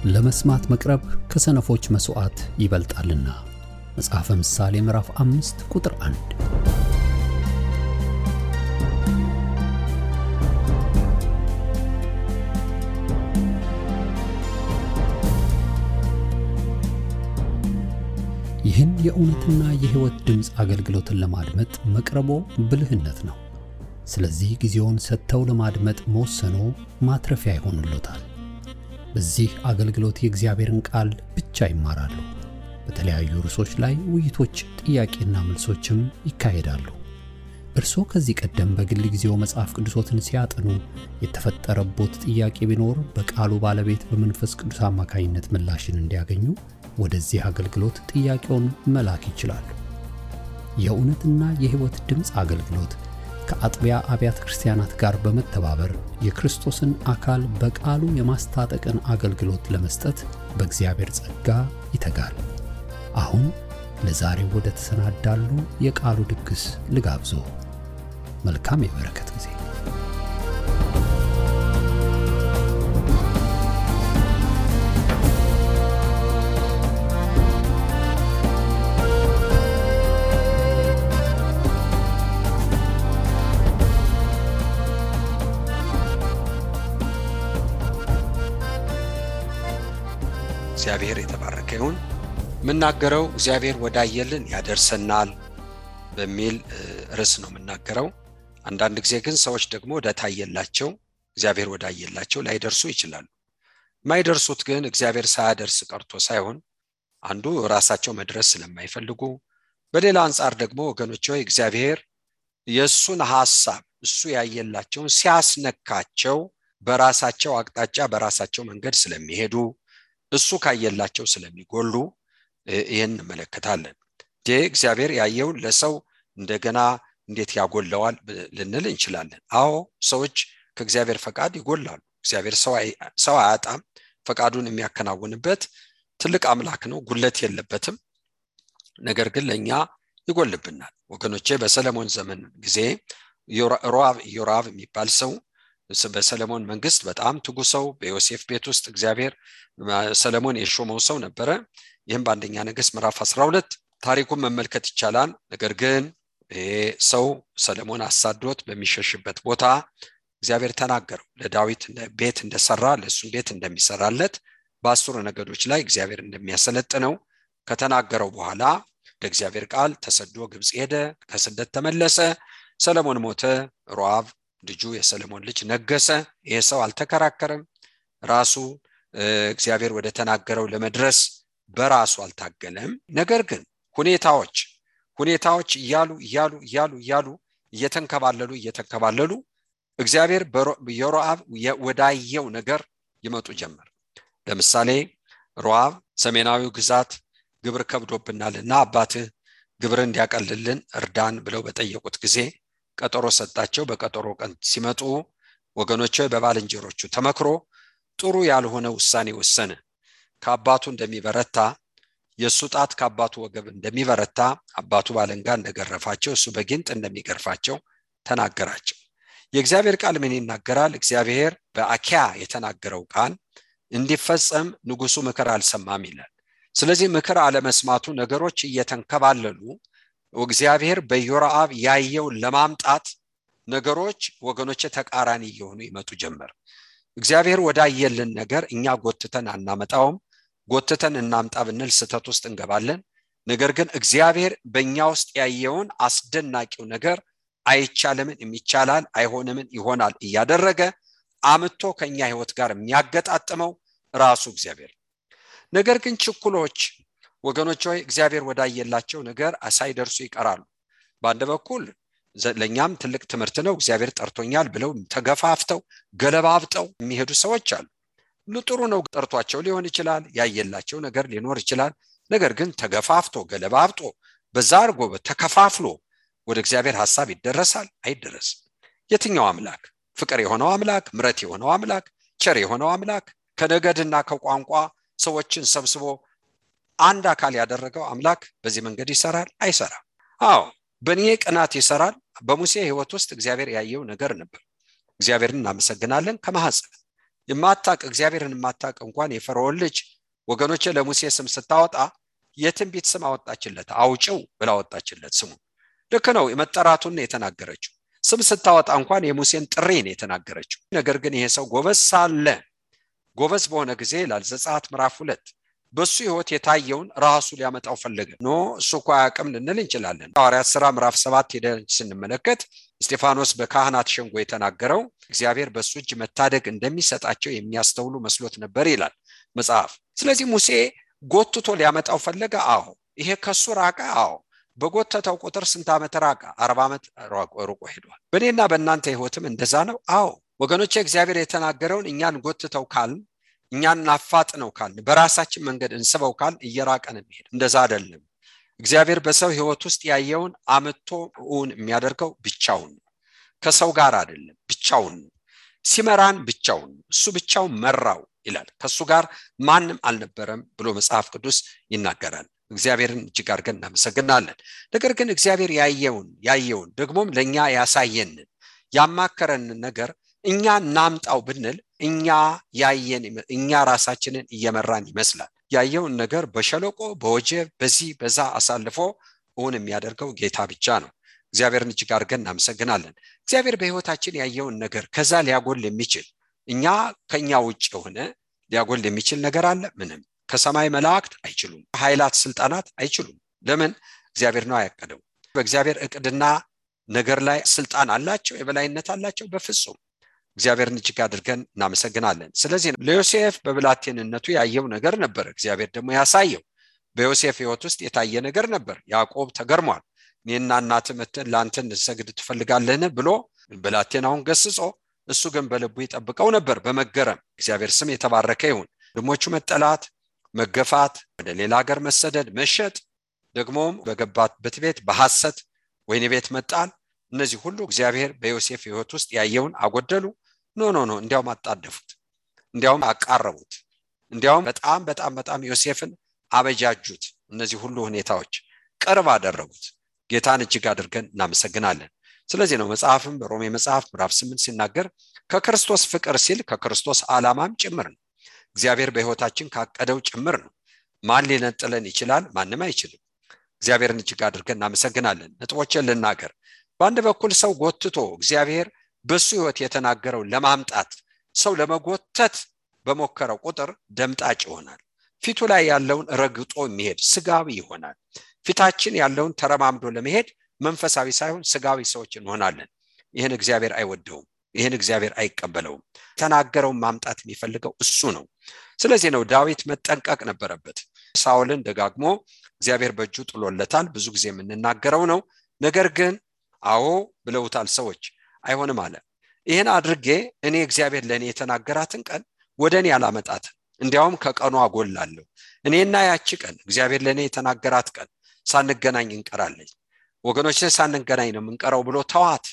ለመስማት መቅረብ ከሰነፎች መስዋዕት ይበልጣልና። መጽሐፈ ምሳሌ ምዕራፍ 5 ቁጥር 1። ይህን የእውነትና የሕይወት ድምጽ አገልግሎትን ለማድመጥ መቅረቦ ብልህነት ነው። ስለዚህ ጊዜውን ሰጥተው ለማድመጥ መወሰኖ ማትረፊያ ይሆንልዎታል። በዚህ አገልግሎት የእግዚአብሔርን ቃል ብቻ ይማራሉ። በተለያዩ ርዕሶች ላይ ውይይቶች፣ ጥያቄና መልሶችም ይካሄዳሉ። እርስዎ ከዚህ ቀደም በግል ጊዜው መጽሐፍ ቅዱሶትን ሲያጠኑ የተፈጠረቦት ጥያቄ ቢኖር በቃሉ ባለቤት በመንፈስ ቅዱስ አማካኝነት ምላሽን እንዲያገኙ ወደዚህ አገልግሎት ጥያቄውን መላክ ይችላሉ። የእውነትና የሕይወት ድምጽ አገልግሎት ከአጥቢያ አብያተ ክርስቲያናት ጋር በመተባበር የክርስቶስን አካል በቃሉ የማስታጠቅን አገልግሎት ለመስጠት በእግዚአብሔር ጸጋ ይተጋል። አሁን ለዛሬው ወደ ተሰናዳሉ የቃሉ ድግስ ልጋብዞ። መልካም የበረከት ጊዜ። እግዚአብሔር የተባረከ ይሁን። ምናገረው እግዚአብሔር ወዳየልን ያደርሰናል በሚል ርዕስ ነው ምናገረው። አንዳንድ ጊዜ ግን ሰዎች ደግሞ ወዳታየላቸው እግዚአብሔር ወዳየላቸው ላይደርሱ ይችላሉ። ማይደርሱት ግን እግዚአብሔር ሳያደርስ ቀርቶ ሳይሆን አንዱ ራሳቸው መድረስ ስለማይፈልጉ፣ በሌላ አንፃር ደግሞ ወገኖች ሆይ እግዚአብሔር የሱን ሐሳብ እሱ ያየላቸውን ሲያስነካቸው በራሳቸው አቅጣጫ በራሳቸው መንገድ ስለሚሄዱ እሱ ካየላቸው ስለሚጎሉ ይሄን እንመለከታለን። እግዚአብሔር ያየው ለሰው እንደገና እንዴት ያጎለዋል ልንል እንችላለን። አዎ ሰዎች ከእግዚአብሔር ፈቃድ ይጎላሉ። እግዚአብሔር ሰው አያጣም። ፈቃዱን የሚያከናውንበት ትልቅ አምላክ ነው፣ ጉለት የለበትም። ነገር ግን ለኛ ይጎልብናል። ወገኖቼ በሰለሞን ዘመን ጊዜ ዮራብ የሚባል ሰው በሰለሞን መንግስት በጣም ትጉ ሰው፣ በዮሴፍ ቤት ውስጥ እግዚአብሔር ሰለሞን የሾመው ሰው ነበረ። ይህም በአንደኛ ነገሥት ምዕራፍ 12 ታሪኩን መመልከት ይቻላል። ነገር ግን ሰው ሰለሞን አሳዶት በሚሸሽበት ቦታ እግዚአብሔር ተናገረው። ለዳዊት ቤት እንደሰራ ለሱ ቤት እንደሚሰራለት በ10 ነገዶች ላይ እግዚአብሔር እንደሚያሰለጥነው ከተናገረው በኋላ ለእግዚአብሔር ቃል ተሰዶ ግብጽ ሄደ። ከስደት ተመለሰ። ሰለሞን ሞተ። ሮአብ ልጁ የሰለሞን ልጅ ነገሰ። ይሄ ሰው አልተከራከረም። ራሱ እግዚአብሔር ወደ ተናገረው ለመድረስ በራሱ አልታገለም። ነገር ግን ሁኔታዎች እያሉ እየተንከባለሉ እግዚአብሔር በሮአብ ወዳየው ነገር ይመጡ ጀመር። ለምሳሌ ሮአብ ሰሜናዊው ግዛት ግብር ከብዶብናልና አባትህ ግብር እንዲያቀልልን እርዳን ብለው በጠየቁት ጊዜ ቀጠሮ ሰጣቸው። በቀጠሮ ቀን ሲመጡ ወገኖቼ በባልንጀሮቹ ተመክሮ ጥሩ ያልሆነ ውሳኔ ወሰነ። ከአባቱ እንደሚበረታ የሱ ጣት ከአባቱ ወገብ እንደሚበረታ አባቱ ባለንጋ እንደገረፋቸው እሱ በጊንጥ እንደሚገርፋቸው ተናገራቸው። የእግዚአብሔር ቃል ምን ይናገራል? እግዚአብሔር በአኪያ የተናገረው ቃል እንዲፈጸም ንጉሱ ምክር አልሰማም ይላል። ስለዚህ ምክር አለመስማቱ ነገሮች እየተንከባለሉ እግዚአብሔር በዮራብ ያየው ለማምጣት ነገሮች ወገኖቼ ተቃራኒ እየሆኑ ይመጡ ጀመር። እግዚአብሔር ወዳየልን ነገር እኛ ጎትተን አናመጣውም። ጎትተን እናምጣ ብንል ስተት ውስጥ እንገባለን። ነገር ግን እግዚአብሔር በእኛ ውስጥ ያየውን አስደናቂው ነገር አይቻልምን የሚቻላል፣ አይሆንምን ይሆናል እያደረገ አምጥቶ ከኛ ህይወት ጋር የሚያገጣጥመው ራሱ እግዚአብሔር። ነገር ግን ችኩሎች ወገኖች ሆይ እግዚአብሔር ወዳየላቸው ነገር ሳይደርሱ ይቀራሉ። በአንድ በኩል ለኛም ትልቅ ትምህርት ነው። እግዚአብሔር ጠርቶኛል ብለው ተገፋፍተው ገለባብጠው የሚሄዱ ሰዎች አሉ። ጥሩ ነው፣ ጠርቷቸው ሊሆን ይችላል፣ ያየላቸው ነገር ሊኖር ይችላል። ነገር ግን ተገፋፍቶ ገለባብጦ በዛ አርጎ ተከፋፍሎ ወደ እግዚአብሔር ሐሳብ ይደረሳል? አይደረስም። የትኛው አምላክ? ፍቅር የሆነው አምላክ፣ ምሕረት የሆነው አምላክ፣ ቸር የሆነው አምላክ ከነገድና ከቋንቋ ሰዎችን ሰብስቦ አንድ አካል ያደረገው አምላክ በዚህ መንገድ ይሰራል? አይሰራም። አዎ በእኔ ቅናት ይሰራል። በሙሴ ህይወት ውስጥ እግዚአብሔር ያየው ነገር ነበር። እግዚአብሔርን እናመሰግናለን። ከማህፀን የማታቅ እግዚአብሔርን የማታቅ እንኳን የፈርዖን ልጅ ወገኖቼ ለሙሴ ስም ስታወጣ የትንቢት ስም አወጣችለት አውጪው ብላ አወጣችለት ስሙ ልክ ነው የመጠራቱን የተናገረችው ስም ስታወጣ እንኳን የሙሴን ጥሪ ነው የተናገረችው ነገር ግን ይሄ ሰው ጎበዝ ሳለ ጎበዝ በሆነ ጊዜ ዘጸአት ምዕራፍ 2 በሱ ህይወት የታየውን ራሱ ሊያመጣው ፈለገ ኖ እሱ እኮ አያውቅም ልንል እንችላለን ሐዋርያት ሥራ ምዕራፍ 7 ሄደን ስንመለከት እስጢፋኖስ በካህናት ሸንጎ የተናገረው እግዚአብሔር በሱ እጅ መታደግ እንደሚሰጣቸው የሚያስተውሉ መስሎት ነበር ይላል መጽሐፍ ስለዚህ ሙሴ ጎትቶ ሊያመጣው ፈለገ አዎ ይሄ ከሱ ራቀ አዎ በጎተተው ቁጥር ስንት ዓመት ራቀ 40 ዓመት ሩቆ ሄዷል በእኔና በእናንተ ህይወትም እንደዛ ነው አዎ ወገኖቼ እግዚአብሔር የተናገረውን እኛን ጎትተው ካል እኛን ናፋጥነው ካል በራሳችን መንገድ እንስበው ካል እየራቀን እንሄድ እንደዛ አይደለም እግዚአብሔር በሰው ህይወት ውስጥ ያየውን አመቶውን የሚያደርገው ብቻውን ከሰው ጋር አይደለም ብቻውን ሲመራን ብቻውን እሱ ብቻውን መራው ይላል ከሱ ጋር ማንም አልነበረም ብሎ መጽሐፍ ቅዱስ ይናገራል እግዚአብሔርን እጅግ አድርገን እናመሰግናለን ነገር ግን እግዚአብሔር ያየውን ደግሞም ለኛ ያሳየን ያማከረን ነገር እኛ ናምጣው ብንል እኛ ራሳችንን እየመራን ይመስላል ያየውን ነገር በሸለቆ በወጀብ በዛ አሳልፎ የሚያደርገው ጌታ ብቻ ነው እግዚአብሔርን እጅግ አድርገን እናመሰግናለን እግዚአብሔር በህይወታችን ያየውን ነገር ከዛ ሊያጎል የሚችል እኛ ከኛ ውጭ ሆነ ሊያጎል የሚችል ነገር አለ ምንም ከሰማይ መላእክት አይችሉም ኃይላት ስልጣናት አይችሉም ለምን እግዚአብሔር ነው ያቀደው በእግዚአብሔር እቅድና ነገር ላይ ስልጣን አላቸው የበላይነት አላቸው በፍጹም እግዚአብሔርን እጅግ አድርገን እናመሰግናለን ስለዚህ ለዮሴፍ በብላቴንነቱ ያየው ነገር ነበር እግዚአብሔር ደግሞ ያሳየው በዮሴፍ ህይወት ውስጥ የታየ ነገር ነበር ያዕቆብ ተገርሟል እኔና እናት መተን ላንተ እንሰግድ ትፈልጋለህን ብሎ ብላቴናውን ገስጾ እሱ ግን በልቡ ይጠብቀው ነበር በመገረም እግዚአብሔር ስም የተባረከ ይሁን ደሞቹ መጠላት መገፋት ወደ ሌላ ሀገር መሰደድ መሸጥ ደግሞም በገባበት ቤት በሐሰት ወይን ቤት መጣል እነዚህ ሁሉ እግዚአብሔር በዮሴፍ ህይወት ውስጥ ያየውን አጎደሉ ኖ እንዲያውም አጣደፉት እንዲያውም አቃረቡት እንዲያውም በጣም ዮሴፍን አበጃጁት እነዚህ ሁሉ ሁኔታዎች ቅርብ አደረጉት ጌታን እጅግ አድርገን እናመሰግናለን ስለዚህ ነው መጽሐፍም በሮሜ መጽሐፍ ምዕራፍ 8 ሲናገር ከክርስቶስ ፍቅር ሲል ከክርስቶስ ዓላማም ጭምር ነው እግዚአብሔር በህይወታችን ካቀደው ጭምር ነው ማን ሊነጥለን ይችላል ማንም አይችልም እግዚአብሔርን እጅግ አድርገን እናመሰግናለን ነጥቦችን ልናገር በአንድ በኩል ሰው ጎትቶ እግዚአብሔር በሱ ህይወት የተናገረው ለማምጣት ሰው ለመጎተት በመከረው ቁጥር ደምጣጭ ይሆናል ፊቱ ላይ ያለውን ረግጦ የሚሄድ ስጋዊ ይሆናል ፊታችን ያለውን ተረማምዶ ለመሄድ መንፈሳዊ ሳይሆን ስጋዊ ሰዎች እንሆናለን ይሄን እግዚአብሔር አይወደውም ይሄን እግዚአብሔር አይቀበለውም ተናገረውን ማምጣት የሚፈልገው እሱ ነው ስለዚህ ነው ዳዊት መጠንቀቅ ነበረበት ሳኦልን ደጋግሞ እግዚአብሔር በእጁ ጥሎለታል ብዙ ጊዜ የምንናገረው ነው ነገር ግን አዎ ብለውታል ሰዎች አይሆንም አለ ይሄን አድርጌ እኔ እግዚአብሔር ለኔ የተናገራትን ቀን ወደኔ ያላመጣት እንዲያውም ከቀኑ አጎላለሁ እኔና ያቺ ቀን እግዚአብሔር ለኔ የተናገራት ቀን ሳንገናኝ እንቀራለን ወገኖች ሳንገናኝ ነው እንቀራው ብሎ ተዋት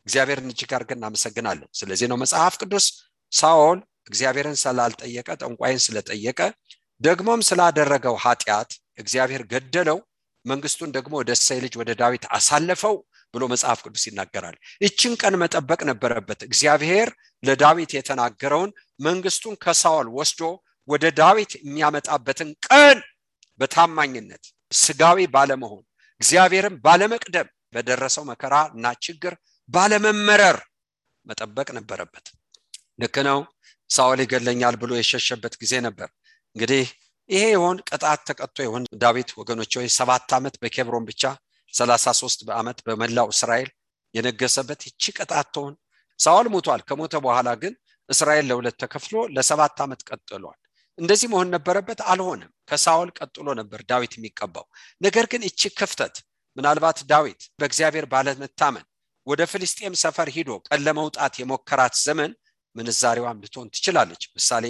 እግዚአብሔርን እጅግ አድርገን እናመሰግናለን ስለዚህ ነው መጽሐፍ ቅዱስ ሳኦል እግዚአብሔርን ስላልጠየቀ ጠንቋይን ስለጠየቀ ደግሞም ስላደረገው ኃጢአት እግዚአብሔር ገደለው መንግስቱን ደግሞ ወደ እሴይ ልጅ ወደ ዳዊት አሳለፈው ብሎ መጽሐፍ ቅዱስ ይናገራል እቺን ቀን መጠበቅ ነበረበት እግዚአብሔር ለዳዊት የተናገረውን መንግስቱን ከሳኦል ወስዶ ወደ ዳዊት የሚያመጣበትን ቀን በታማኝነት ስጋዊ ባለመሆን እግዚአብሔርን ባለመቅደም በደረሰው መከራና ችግር ባለመመረር መጠበቅ ነበረበት ልክ ነው ሳኦል ይገለኛል ብሎ የሸሸበት ጊዜ ነበር እንግዲህ ይሄ ይሆን ቅጣት ተቀጥቶ ይሆን ዳዊት ወገኖች ሆይ 7 ዓመት በኬብሮን ብቻ 33 ዓመት በመላው እስራኤል የነገሰበት እቺ ቅጣት ተሆን ሳኦል ሞቷል ከሞተ በኋላ ግን እስራኤል ለሁለት ተከፍሎ ለ7 ዓመት ቀጥሏል እንደዚህ መሆን ነበረበት አልሆነም ከሳኦል ቀጥሎ ነበር ዳዊት የሚቀባው ነገር ግን እቺ ክፍተት ምናልባት ዳዊት በእግዚአብሔር ባለመታመን ወደ ፍልስጤም ሰፈር ሄዶ ቀለመውጣት የሞከራት ዘመን ምንዛሬዋን ልትሆን ትችላለች ምሳሌ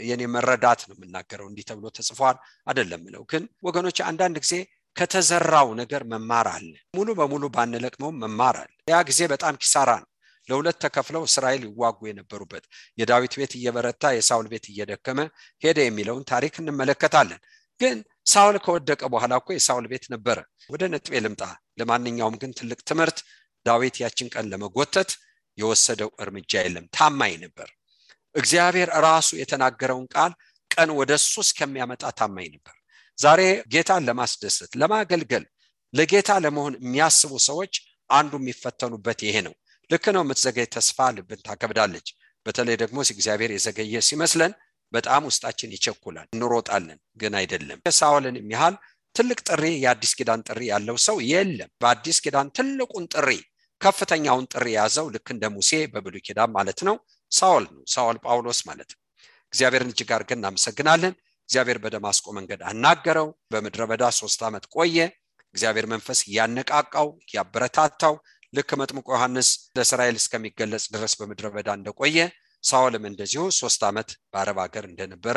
የኔ መረዳት ነው የምናገረው እንዲህ ተብሎ ተጽፏል አይደለም ነው ግን ወገኖች አንዳንድ ጊዜ ከተዘራው ነገር መማር አለ ሙሉ በሙሉ ባንለቅመው መማር አለ ያ ጊዜ በጣም ኪሳራ ነው ለሁለት ተከፍለው እስራኤል ይዋጉ የነበሩበት የዳዊት ቤት እየበረታ የሳኦል ቤት እየደከመ ሄደ የሚለውን ታሪክ እንመለከታለን ግን ሳኦል ከወደቀ በኋላ እኮ የሳኦል ቤት ነበር ወደ ነጥቤ ልምጣ ለማንኛውም ግን ትልቅ ትምህርት ዳዊት ያችን ቀን ለመጎተት የወሰደው እርምጃ የለም ታማኝ ነበር እግዚአብሔር ራሱ የተናገረውን ቃል ቀን ወደሱ እስከሚያመጣ ታማኝ ነበር። ዛሬ ጌታን ለማስደሰት ለማገልገል ለጌታ ለመሆን የሚያስቡ ሰዎች አንዱ የሚፈተኑበት ይሄ ነው። ልክ ነው፣ የምትዘገይ ተስፋ ልብን ታከብዳለች። በተለይ ደግሞ እግዚአብሔር የዘገየ ሲመስለን በጣም ውስጣችን ይቸኩላል፣ እንሮጣለን፣ ግን አይደለም። ሳኦልን የሚያህል ትልቅ ጥሪ የአዲስ ኪዳን ጥሪ ያለው ሰው የለም። በአዲስ ኪዳን ትልቁን ጥሪ ከፍተኛውን ጥሪ ያዘው ልክ እንደ ሙሴ በብሉይ ኪዳን ማለት ነው ሳኦል ነው፣ ሳኦል ጳውሎስ ማለት ነው። እግዚአብሔርን እጅግ አድርገን እናመሰግናለን። እግዚአብሔር በደማስቆ መንገድ አናገረው። በምድረ በዳ 3 ዓመት ቆየ። እግዚአብሔር መንፈስ ያነቃቃው ያበረታታው። ልክ መጥምቁ ዮሐንስ ለእስራኤል እስከሚገለጽ ድረስ በምድረ በዳ እንደቆየ ሳኦልም እንደዚሁ 3 ዓመት በአረብ ሀገር እንደነበረ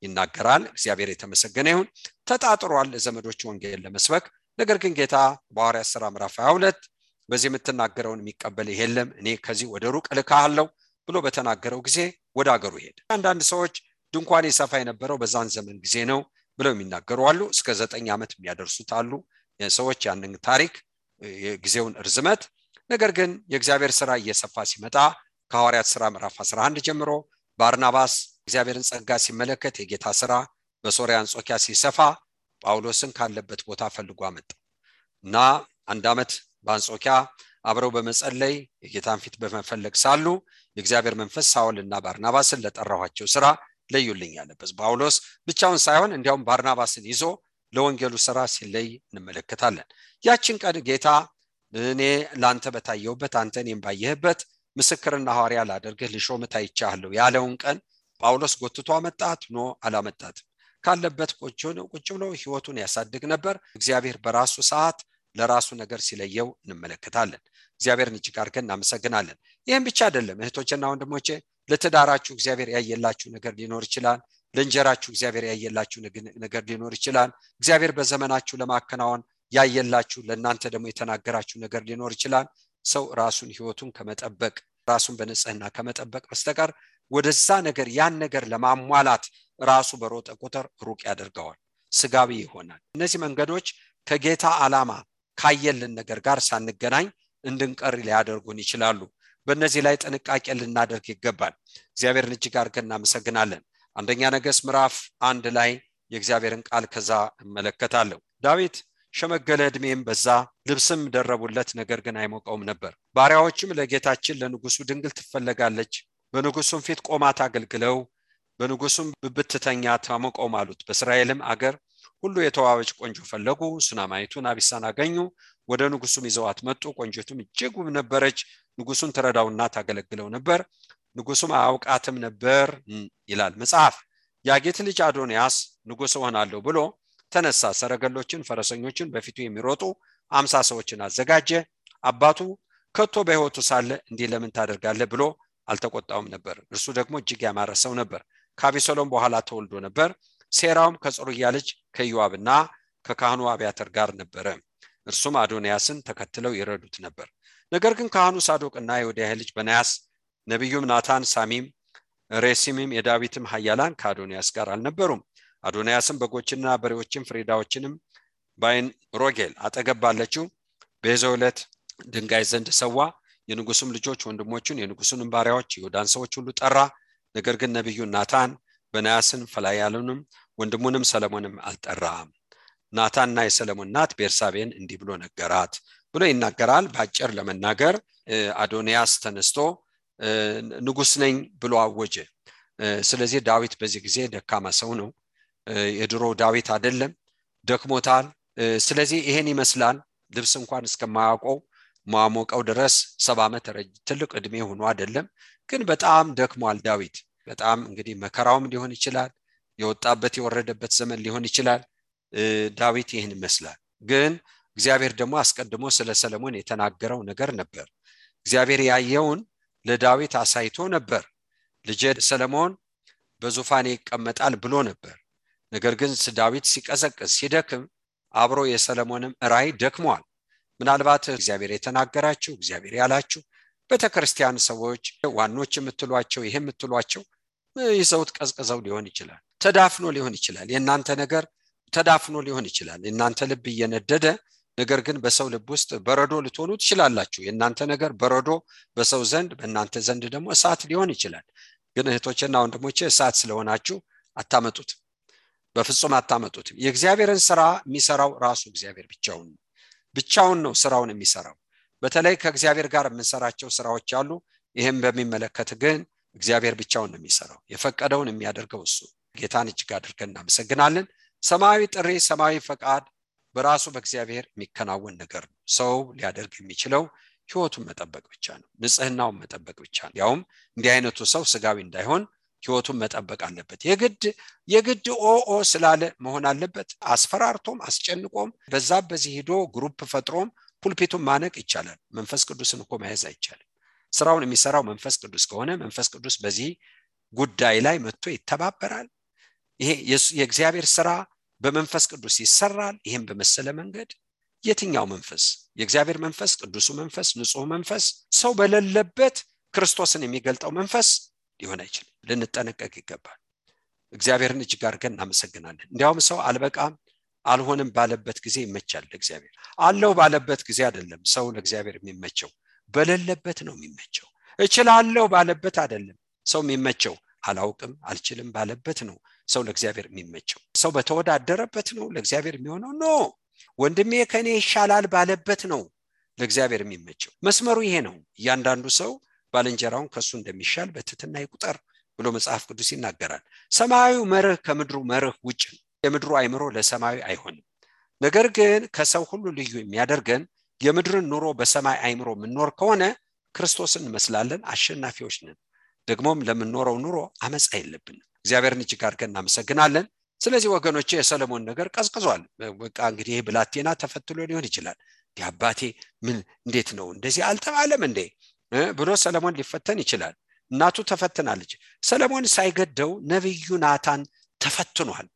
ይናገራል። እግዚአብሔር የተመሰገነ ይሁን። ተጣጥሯል ለዘመዶች ወንጌል ለመስበክ። ነገር ግን ጌታ በሐዋርያት ሥራ ምዕራፍ 22 በዚህ የምትናገረውን የሚቀበል የለም፣ እኔ ከዚህ ወደ ሩቅ እልክሃለሁ ብሎ በተናገረው ጊዜ ወደ ሀገሩ ሄደ። አንዳንድ ሰዎች ድንኳን ይሰፋ የነበረው በዛን ዘመን ጊዜ ነው ብለው የሚናገሩ አሉ። እስከ 9 ዓመት የሚያደርሱት አሉ ሰዎች ያንን ታሪክ የጊዜውን እርዝመት። ነገር ግን የእግዚአብሔር ሥራ እየሰፋ ሲመጣ ከሐዋርያት ሥራ ምዕራፍ 11 ጀምሮ ባርናባስ እግዚአብሔርን ጸጋ ሲመለከት የጌታ ሥራ በሶርያ አንጾኪያ ሲሰፋ ጳውሎስን ካለበት ቦታ ፈልጎ አመጣው እና 1 ዓመት በአንጾኪያ አብረው በመጸለይ የጌታን ፊት በመፈለግ ሳሉ የእግዚአብሔር መንፈስ ሳኦልና ባርናባስን ለጠራኋቸው ሥራ ለዩልኝ አለበት። ጳውሎስ ብቻውን ሳይሆን እንዲያውም ባርናባስን ይዞ ለወንጌሉ ሥራ ሲለይ እንመለከታለን። ያችን ቀን ጌታ እኔ ላንተ በታየውበት አንተ እኔም ባየህበት ምስክርና ሐዋርያ ላደርግህ ልሾምህ ታይቻለሁ ያለውን ቀን ጳውሎስ ጎትቶ አመጣት ነው አላመጣት? ካለበት ቁጭ ብሎ ህይወቱን ያሳድግ ነበር። እግዚአብሔር በራሱ ሰዓት ለራሱ ነገር ሲለየው እንመለከታለን። እግዚአብሔርን እጅግ አድርገን እናመሰግናለን። ይህም ብቻ አይደለም እህቶችና ወንድሞቼ፣ ለትዳራችሁ እግዚአብሔር ያየላችሁ ነገር ሊኖር ይችላል። ለእንጀራችሁ እግዚአብሔር ያየላችሁ ነገር ሊኖር ይችላል። እግዚአብሔር በዘመናችሁ ለማከናወን ያየላችሁ ለእናንተ ደግሞ የተናገራችሁ ነገር ሊኖር ይችላል። ሰው ራሱን ህይወቱን ከመጠበቅ ራሱን በንጽህና ከመጠበቅ በስተቀር ወደዛ ነገር ያን ነገር ለማሟላት ራሱ በሮጠ ቁጥር ሩቅ ያደርገዋል፣ ስጋዊ ይሆናል። እነዚህ መንገዶች ከጌታ ዓላማ ካየልን ነገር ጋር ሳንገናኝ እንድንቀር ሊያደርጉን ይችላሉ። በእነዚህ ላይ ጥንቃቄ ልናደርግ ይገባል። እግዚአብሔርን እጅግ አድርገን እናመሰግናለን። አንደኛ ነገሥት ምዕራፍ 1 ላይ የእግዚአብሔርን ቃል ከዛ እመለከታለሁ። ዳዊት ሸመገለ፣ ዕድሜም በዛ፣ ልብስም ደረቡለት፣ ነገር ግን አይሞቀውም ነበር። ባሪያዎችም ለጌታችን ለንጉሱ ድንግል ትፈለጋለች፣ በንጉሱም ፊት ቆማ ታገልግለው፣ በንጉሱም ብብትተኛ ታሞቀው አሉት። በእስራኤልም አገር ሁሉ የተዋበች ቆንጆ ፈለጉ። ሱናማይቱን አቢሳን አገኙ፣ ወደ ንጉሱም ይዘዋት መጡ። ቆንጆቱም እጅግ ውብ ነበረች፣ ንጉሱን ትረዳውና ታገለግለው ነበር። ንጉሱም አያውቃትም ነበር ይላል መጽሐፍ። የአጌት ልጅ አዶንያስ ንጉስ ሆናለሁ ብሎ ተነሳ። ሰረገሎችን ፈረሰኞችን በፊቱ የሚሮጡ 50 ሰዎችን አዘጋጀ። አባቱ ከቶ በሕይወቱ ሳለ እንዲህ ለምን ታደርጋለህ ብሎ አልተቆጣውም ነበር። እርሱ ደግሞ እጅግ ያማረ ሰው ነበር። ከአቢሰሎም በኋላ ተወልዶ ነበር። ሴራውም ከጽሩያ ልጅ ከኢዮአብና ከካህኑ አብያተር ጋር ነበረ። እርሱም አዶንያስን ተከትለው ይረዱት ነበር። ነገር ግን ካህኑ ሳዶቅና የወዲያ ልጅ በናያስ፣ ነቢዩም ናታን፣ ሳሚም፣ ሬሲምም የዳዊትም ኃያላን ከአዶንያስ ጋር አልነበሩም። አዶንያስም በጎችና በሬዎችን ፍሪዳዎችንም ባይን ሮጌል አጠገብ ባለችው በዘውለት ድንጋይ ዘንድ ሰዋ። የንጉሱም ልጆች ወንድሞቹን የንጉሱንም ባሪያዎች ይሁዳን ሰዎች ሁሉ ጠራ። ነገር ግን ነቢዩ ናታን በናያስን ፈላያሉንም ወንድሙንም ሰለሞንም አልጠራም። ናታንና የሰለሞን እናት ቤርሳቤን እንዲህ ብሎ ነገራት ብሎ ይናገራል። በአጭር ለመናገር አዶንያስ ተነስቶ ንጉስ ነኝ ብሎ አወጀ። ስለዚህ ዳዊት በዚህ ጊዜ ደካማ ሰው ነው። የድሮ ዳዊት አይደለም፣ ደክሞታል። ስለዚህ ይሄን ይመስላል። ልብስ እንኳን እስከማያውቀው ማሞቀው ድረስ 70 ዓመት ትልቅ እድሜ ሆኖ አይደለም፣ ግን በጣም ደክሟል ዳዊት። በጣም እንግዲህ መከራውም ሊሆን ይችላል፣ የወጣበት የወረደበት ዘመን ሊሆን ይችላል። ዳዊት ይሄን ይመስላል። ግን እግዚአብሔር ደግሞ አስቀድሞ ስለ ሰለሞን የተናገረው ነገር ነበር። እግዚአብሔር ያየውን ለዳዊት አሳይቶ ነበር። ልጄ ሰለሞን በዙፋኔ ይቀመጣል ብሎ ነበር። ነገር ግን ዳዊት ሲቀዘቅዝ ሲደክም አብሮ የሰለሞንም ራእይ ደክሟል። ምናልባት እግዚአብሔር የተናገራችሁ እግዚአብሔር ያላችሁ በተክርስቲያን ሰዎች ዋኖች የምትሏቸው ይሄ የምትሏቸው ይዘውት ቀዝቅዘው ሊሆን ይችላል፣ ተዳፍኖ ሊሆን ይችላል። የእናንተ ነገር ተዳፍኖ ሊሆን ይችላል። የእናንተ ልብ እየነደደ ነገር ግን በሰው ልብ ውስጥ በረዶ ልትሆኑ ትችላላችሁ። የእናንተ ነገር በረዶ በሰው ዘንድ በእናንተ ዘንድ ደግሞ እሳት ሊሆን ይችላል። ግን እህቶችና ወንድሞቼ እሳት ስለሆናችሁ አታመጡት፣ በፍጹም አታመጡት። የእግዚአብሔርን ስራ የሚሰራው ራሱ እግዚአብሔር ብቻውን ነው ስራውን የሚሰራው። በተለይ ከእግዚአብሔር ጋር የምንሰራቸው ስራዎች አሉ። ይሄን በሚመለከት ግን እግዚአብሔር ብቻውን ነው የሚሰራው፣ የፈቀደውን የሚያደርገው እሱ። ጌታን እጅግ አድርገን እናመሰግናለን። ሰማያዊ ጥሪ፣ ሰማያዊ ፈቃድ በራሱ በእግዚአብሔር የሚከናወን ነገር ነው። ሰው ሊያደርግ የሚችለው ህይወቱን መጠበቅ ብቻ ነው፣ ንጽህናውን መጠበቅ ብቻ ነው። ያውም እንዲህ አይነቱ ሰው ስጋዊ እንዳይሆን ህይወቱን መጠበቅ አለበት። የግድ ኦ ስላለ መሆን አለበት። አስፈራርቶም አስጨንቆም በዚህ ሄዶ ግሩፕ ፈጥሮም ፑልፒቱን ማነቅ ይቻላል። መንፈስ ቅዱስን እኮ መያዝ አይቻልም። ስራውን የሚሰራው መንፈስ ቅዱስ ከሆነ መንፈስ ቅዱስ በዚህ ጉዳይ ላይ መጥቶ ይተባበራል። ይሄ የእግዚአብሔር ስራ በመንፈስ ቅዱስ ይሰራል። ይሄን በመሰለ መንገድ የትኛው መንፈስ? የእግዚአብሔር መንፈስ፣ ቅዱሱ መንፈስ፣ ንጹህ መንፈስ ሰው በሌለበት ክርስቶስን የሚገልጠው መንፈስ ሊሆን አይችልም። ልንጠነቀቅ ይገባል። እግዚአብሔርን እጅግ አድርገን እናመሰግናለን። እንዲያውም ሰው አልበቃም አልሆንም ባለበት ጊዜ ይመቻል ለእግዚአብሔር። አለው ባለበት ጊዜ አይደለም ሰው ለእግዚአብሔር የሚመቸው፣ በሌለበት ነው የሚመቸው። እችላለሁ ባለበት አይደለም ሰው የሚመቸው፣ አላውቅም አልችልም ባለበት ነው ሰው ለእግዚአብሔር የሚመቸው። ሰው በተወዳደረበት ነው ለእግዚአብሔር የሚሆነው ነው። ወንድሜ ከኔ ይሻላል ባለበት ነው ለእግዚአብሔር የሚመቸው። መስመሩ ይሄ ነው። እያንዳንዱ ሰው ባልንጀራውን ከሱ እንደሚሻል በትህትና ይቁጠር ብሎ መጽሐፍ ቅዱስ ይናገራል። ሰማያዊው መርህ ከምድሩ መርህ ውጭ ነው። የምድሩ አይምሮ ለሰማያዊ አይሆንም። ነገር ግን ከሰው ሁሉ ልዩ የሚያደርገን የምድርን ኑሮ በሰማይ አይምሮ የምንኖር ከሆነ ክርስቶስን እንመስላለን፣ አሸናፊዎች ነን። ደግሞም ለምንኖረው ኑሮ አመጻ የለብንም። እግዚአብሔርን እጅግ አድርገን እናመሰግናለን። ስለዚህ ወገኖቼ የሰለሞን ነገር ቀዝቅዟል። በቃ እንግዲህ ብላቴና ተፈትሎ ሊሆን ይችላል። አባቴ ምን እንዴት ነው እንደዚህ አልተባለም እንዴ ብሎ ሰለሞን ሊፈተን ይችላል። እናቱ ተፈትናለች። ሰለሞን ሳይገደው ነብዩ ናታን ተፈትኗል።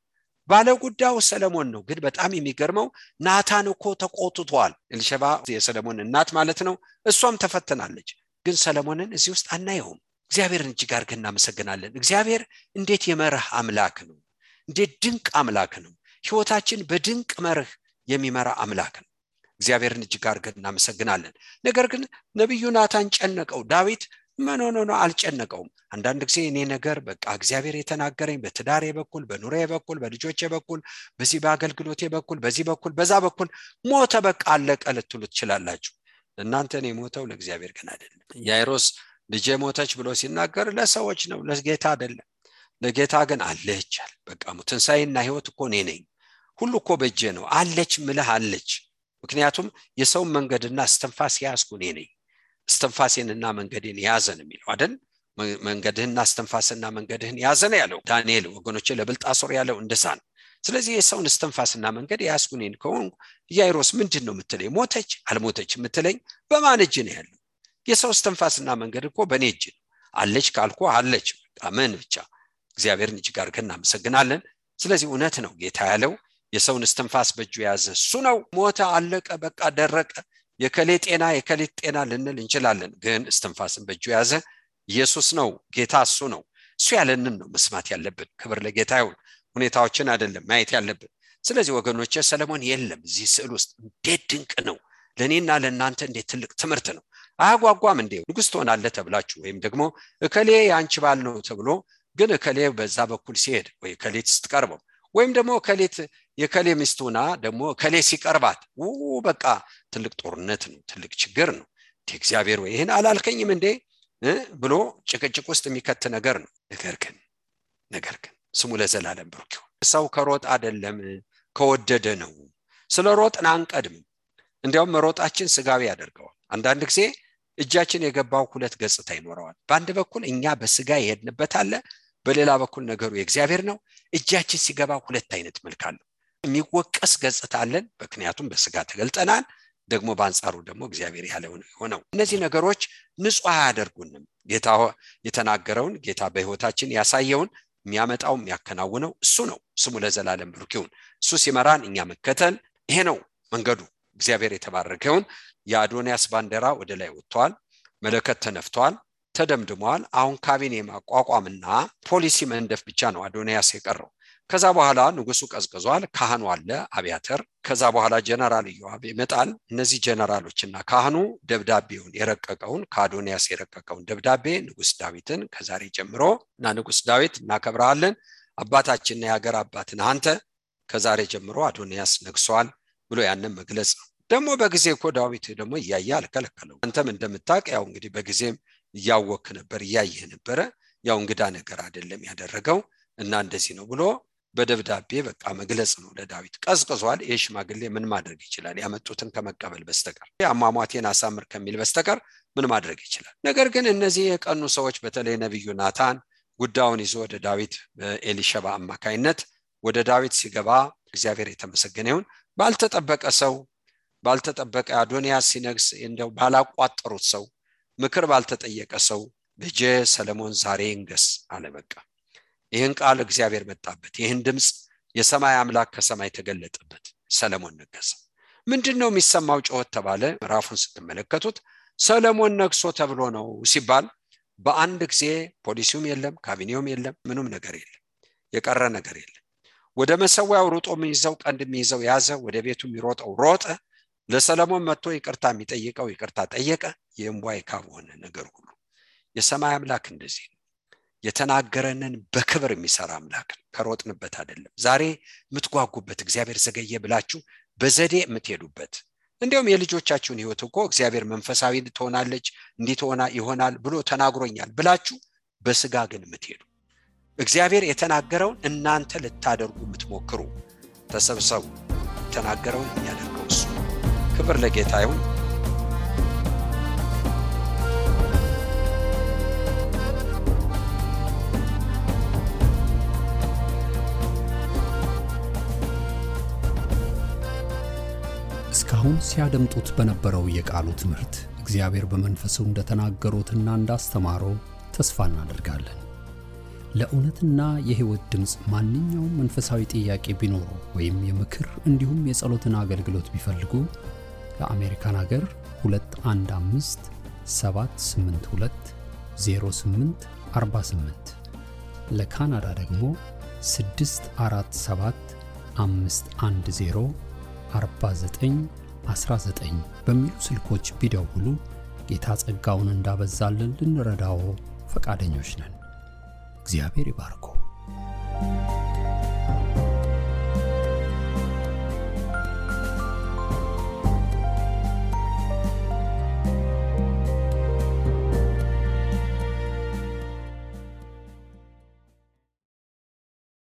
ባለጉዳዩ ሰለሞን ነው። ግን በጣም የሚገርመው ናታን እኮ ተቆጥቷል። ኤልሸባ የሰለሞን እናት ማለት ነው። እሷም ተፈትናለች። ግን ሰለሞንን እዚህ ውስጥ አናየውም። እግዚአብሔርን እጅግ አድርገን እናመሰግናለን። እግዚአብሔር እንዴት የመርህ አምላክ ነው! እንዴት ድንቅ አምላክ ነው! ህይወታችን በድንቅ መርህ የሚመራ አምላክ ነው። እግዚአብሔርን እጅግ አድርገን እናመሰግናለን። ነገር ግን ነብዩ ናታን ጨነቀው። ዳዊት ምን አልጨነቀውም። አንዳንድ ጊዜ እኔ ነገር በቃ እግዚአብሔር የተናገረኝ በትዳሬ በኩል፣ በኑሮዬ በኩል፣ በልጆቼ በኩል፣ በዚህ በአገልግሎቴ በኩል፣ በዚህ በኩል፣ በዛ በኩል ሞተ በቃ አለቀ ልትሉ ትችላላችሁ። እናንተ ነው የሞተው፣ ለእግዚአብሔር ግን አይደለም። ያይሮስ ልጄ ሞተች ብሎ ሲናገር ለሰዎች ነው፣ ለጌታ አይደለም። ለጌታ ግን አለች አለ። በቃ ትንሣኤና ህይወት እኮ እኔ ነኝ፣ ሁሉ እኮ በእጄ ነው አለች ምልህ አለች። ምክንያቱም የሰው መንገድና እስትንፋስ ያዝኩ እኔ ነኝ። እስትንፋሴንና መንገዴን ያዘን የሚለው አይደል? መንገድህና እስትንፋስና መንገድህን ያዘን ያለው ዳንኤል ወገኖቼ ለብልጣሶር ያለው እንደሳን። ስለዚህ የሰውን እስትንፋስና መንገድ ያዝኩ እኔ ከሆንኩ ያይሮስ ምንድነው የምትለኝ? ሞተች አልሞተች የምትለኝ በማን እጅ ነው ያለው? የሰው እስትንፋስና መንገድ እኮ በእኔ እጅ ነው። አለች ካልኩ አለች በቃ ምን ብቻ። እግዚአብሔርን እጅግ አድርገን እናመሰግናለን። ስለዚህ እውነት ነው ጌታ ያለው የሰውን እስትንፋስ በእጁ ያዘ እሱ ነው። ሞተ አለቀ በቃ ደረቀ የከሌ ጤና ልንል እንችላለን። ግን እስትንፋስን በእጁ ያዘ ኢየሱስ ነው። ጌታ እሱ ነው። እሱ ያለንን ነው መስማት ያለብን። ክብር ለጌታ ይሁን። ሁኔታዎችን አይደለም ማየት ያለብን። ስለዚህ ወገኖቼ ሰለሞን የለም እዚህ ስዕል ውስጥ። እንዴት ድንቅ ነው! ለኔና ለእናንተ እንዴት ትልቅ ትምህርት ነው! አያጓጓም እንዴ? ንጉስ ትሆናለህ ተብላችሁ ወይም ደግሞ እከሌ ያንቺ ባል ነው ተብሎ ግን እከሌ በዛ በኩል ሲሄድ ወይ ከሌት ስትቀርበው ወይም ደግሞ ከሌት የከሌ ሚስቱና ደግሞ ከሌ ሲቀርባት በቃ ትልቅ ጦርነት ነው፣ ትልቅ ችግር ነው። እግዚአብሔር ወይ ይሄን አላልከኝም እንዴ ብሎ ጭቅጭቅ ውስጥ የሚከት ነገር ነው። ነገር ግን ስሙ ለዘላለም ብሩክ ይሁን። ሰው ከሮጥ አይደለም ከወደደ ነው። ስለ ሮጥን አንቀድም። እንዲያውም መሮጣችን ስጋዊ ያደርገዋል። አንዳንድ ጊዜ እጃችን የገባው ሁለት ገጽታ ይኖረዋል። በአንድ በኩል እኛ በስጋ የሄድንበት አለ፣ በሌላ በኩል ነገሩ የእግዚአብሔር ነው። እጃችን ሲገባ ሁለት አይነት መልክ አለው። የሚወቀስ ገጽታ አለን፣ ምክንያቱም በስጋ ተገልጠናል። ደግሞ በአንጻሩ ደግሞ እግዚአብሔር ያለው ነው። እነዚህ ነገሮች ንጹህ አያደርጉንም። ጌታ የተናገረውን ጌታ በህይወታችን ያሳየውን የሚያመጣው የሚያከናውነው እሱ ነው። ስሙ ለዘላለም ብሩክ ይሁን። እሱ ሲመራን እኛ መከተል፣ ይሄ ነው መንገዱ። እግዚአብሔር የተባረከውን የአዶንያስ ባንዲራ ወደ ላይ ወጥቷል። መለከት ተነፍቷል፣ ተደምድሟል። አሁን ካቢኔ ማቋቋምና ፖሊሲ መንደፍ ብቻ ነው አዶንያስ የቀረው። ከዛ በኋላ ንጉሱ ቀዝቅዟል። ካህኑ አለ አብያተር። ከዛ በኋላ ጀነራል ኢዮአብ ይመጣል። እነዚህ ጀነራሎችና ካህኑ ደብዳቤውን የረቀቀውን ከአዶንያስ የረቀቀውን ደብዳቤ ንጉስ ዳዊትን ከዛሬ ጀምሮ እና ንጉስ ዳዊት እናከብራለን፣ አባታችንና የሀገር አባትን አንተ ከዛሬ ጀምሮ አዶንያስ ነግሷል ብሎ ያንን መግለጽ ነው። ደግሞ በጊዜ እኮ ዳዊት ደግሞ እያየ አልከለከለው። አንተም እንደምታውቅ ያው እንግዲህ በጊዜም እያወክ ነበር እያየህ ነበረ። ያው እንግዳ ነገር አይደለም ያደረገው እና እንደዚህ ነው ብሎ በደብዳቤ በቃ መግለጽ ነው ለዳዊት። ቀዝቅዟል። የሽማግሌ ምን ማድረግ ይችላል? ያመጡትን ከመቀበል በስተቀር አሟሟቴን አሳምር ከሚል በስተቀር ምን ማድረግ ይችላል? ነገር ግን እነዚህ የቀኑ ሰዎች በተለይ ነብዩ ናታን ጉዳዩን ይዞ ወደ ዳዊት በኤሊሸባ አማካይነት ወደ ዳዊት ሲገባ እግዚአብሔር የተመሰገነ ይሁን ባልተጠበቀ ሰው ባልተጠበቀ አዶንያስ ሲነግስ እንደው ባላቋጠሩት ሰው ምክር ባልተጠየቀ ሰው ልጄ ሰለሞን ዛሬ ይንገስ አለ። በቃ ይህን ቃል እግዚአብሔር መጣበት። ይህን ድምጽ የሰማይ አምላክ ከሰማይ ተገለጠበት። ሰለሞን ነገሰ። ምንድነው የሚሰማው ጩኸት ተባለ። ምዕራፉን ስትመለከቱት ሰለሞን ነግሶ ተብሎ ነው ሲባል በአንድ ጊዜ ፖሊሲውም የለም፣ ካቢኔውም የለም፣ ምንም ነገር የለም፣ የቀረ ነገር የለም። ወደ መሰዊያው ሮጦ የሚይዘው ቀንድ የሚይዘው ያዘ፣ ወደ ቤቱ የሚሮጠው ሮጠ። ለሰለሞን መጥቶ ይቅርታ የሚጠይቀው ይቅርታ ጠየቀ። የእምቧይ ካብ ሆነ ነገር ሁሉ። የሰማይ አምላክ እንደዚህ ነው። የተናገረንን በክብር የሚሰራ አምላክ ነው። ከሮጥንበት አይደለም። ዛሬ የምትጓጉበት እግዚአብሔር ዘገየ ብላችሁ በዘዴ የምትሄዱበት እንዲያውም የልጆቻችሁን ህይወት እኮ እግዚአብሔር መንፈሳዊ ትሆናለች እንዲትሆና ይሆናል ብሎ ተናግሮኛል ብላችሁ በስጋ ግን የምትሄዱ እግዚአብሔር የተናገረውን እናንተ ልታደርጉ የምትሞክሩ ተሰብሰቡ። የተናገረውን የሚያደርገው እሱ። ክብር ለጌታ ይሁን። እስካሁን ሲያደምጡት በነበረው የቃሉ ትምህርት እግዚአብሔር በመንፈሱ እንደተናገሩትና እንዳስተማረው ተስፋ እናደርጋለን። ለእውነትና የሕይወት ድምጽ ማንኛውም መንፈሳዊ ጥያቄ ቢኖሩ ወይም የምክር እንዲሁም የጸሎትን አገልግሎት ቢፈልጉ ለአሜሪካን ሀገር 215 782 0848 ለካናዳ ደግሞ 647 510 4919 በሚሉ ስልኮች ቢደውሉ ጌታ ጸጋውን እንዳበዛልን ልንረዳው ፈቃደኞች ነን። እግዚአብሔር ይባርኮ።